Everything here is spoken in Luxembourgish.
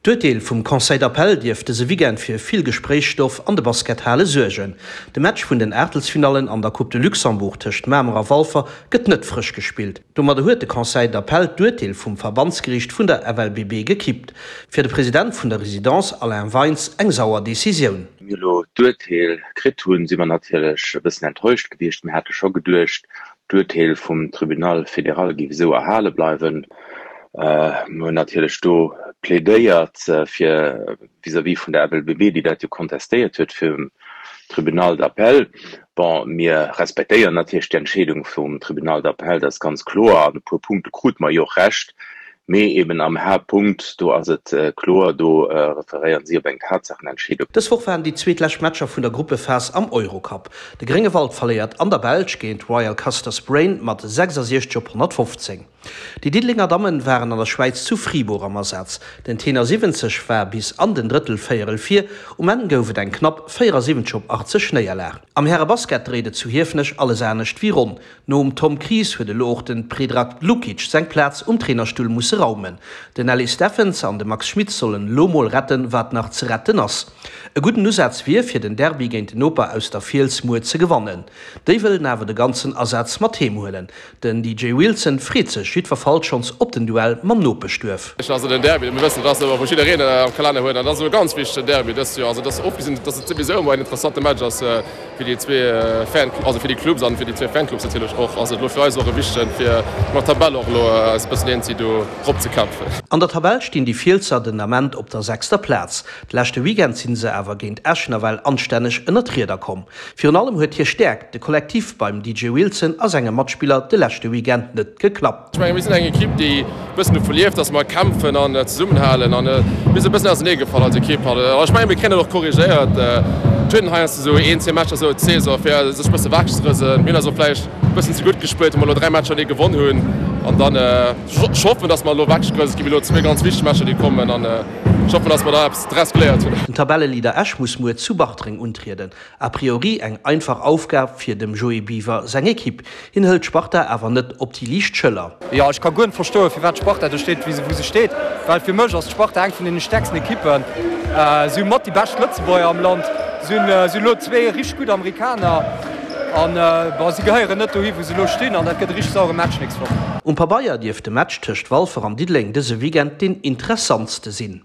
D'Urteel vum Conseil d'appel dierft dëse Weekend fir vill Gespréichsstoff an de Baskethale suergen. De Match vun den Aachtelsfinallen an der Coupe de Luxembourg tëscht Mamer a Walfer gëtt net frësch gespillt. Domadder huet de Conseil d'appel d'Urteel vum Verbandsgeriicht vun der FLBB gekippt. Fir de President vun der Residence Alain Weins eng sauer Decisioun. Wéi mir elo d'Urteel kritt hunn, si mer natierlech e bëssen enttäuscht gewiescht. Mir hate scho geduecht, D'Urteel vum Tribunal fédéral géif esou erhale bleiwen. Mir hunn natierlech do plädéiert fir vis-à-vis vun der FLBB, déi dat jo kontestéiert huet virum Tribunal d'appel. Bon, mir respektéieren natierlech d'Entscheedung vum Tribunal d'appel, dat ass ganz kloer. An e puer Punkte krute mer jo och Recht. Mee eben am Haaptpunkt, do ass et kloer, do referéieren si op eng Tatsaachenentscheedung. Dës Woch waren déi zweet lescht Matcher vun der Gruppephas am Eurocup. De Gréngewald verléiert an der Belsch géint Royal Castors Braine mat 66 op 115. Déi Diddelenger Dammen waren an der Schwäiz zu Fribourg am Asaz. Den Tenor 70 war bis an den Drëttelvéierel vir, um Enn gouf et eng knapp 74 op 80 Néierlag. Am Härebasket dréit et zu Hiefenech alles anescht wéi ronn. Nom Tom Kries huet elo och den Predrag Lukic seng Plaz um Trainerstull musse raumen. Den Ellis Steffens an de Max Schmitz sollen elo mol retten, wat nach ze retten ass. E gudden Usaz wier, fir den Derby géint den Noper aus der Fiels muer ze gewannen. Déi wëllen awer de ganzen Asaz mat heem huelen. Den DJ Wilson freet sech jiddwerfalls schonns op den Duell mam Nopeschduerf. Also den Derby, mir wëssen, et ass ëmmer wou jiddereen am Kalenner huet an et ass e ganz wichtegen Derby dëst Joer. Also et ass ofgesinn, datt et souwisou ëmmer en interessante Match ass, Fir déi zwee Fan, also fir déi Clubs an fir déi zwee Fanclubs natierlech och, ass et elo fir eis och e wichtegen, fir mat Tabell och elo eis e bëssen eenzi do rop ze kämpfen. An der Tabell stinn déi Fielsser den Ament op der sechster Plaz. De leschte Weekend sinn se awer géint Esch nawell anstänneg ënner d'Rieder komm. Virun allem huet hir Stäerkt, de Kollektiv, beim DJ Wilson a senge Matspiller de leschte Weekend net geklappt. Ech mengen, mir sinn eng Ekipp, déi e bëssen dovu lieft, dass mer kämpfen an zesummenhalen. An mir sinn e bëssen auserneegefall als Ekipp. An ech mengen, mir kréien dat och korrigéiert. Et huet een heiansdo esou een, zwee Matcher esou d'Saison, fir sech e bësse wechzerësen. Mir hunn eis och vläicht e bëssen ze gutt gespillt, wou mer elo 3 Matcher déi gewonn hunn. An dann, ech hoffen, dass mer elo wechgerëselt ginn. Mir hu elo zwee ganz wichteg Matcher, déi kommen. An ech hoffen, dass mer da eppes draus geléiert hunn. Den Tabelleleader Esch muss muer zu Bartreng untrieden. A priori eng einfach Aufgab fir dem Joé Biwer seng Ekipp. Hien hëlt d'Sparta awer net op déi liicht Schëller. Jo, ech ka guer net verstoen, firwat d'Sparta do steet, wou se steet, well fir mech ass d'Sparta eng vun deene stäerksten Ekippen. Si hu mat déi bescht Lëtzebuerger am Land, si hunn elo zwee richteg gutt Amerikaner an, bon, si gehéieren net dohi, wou se elo stinn an dat gëtt e richteg sauere Match nächst Woch. Um Pabeier dierft de Match tëscht Walfer an Diddeleng dëse Weekend deen interessantste sinn.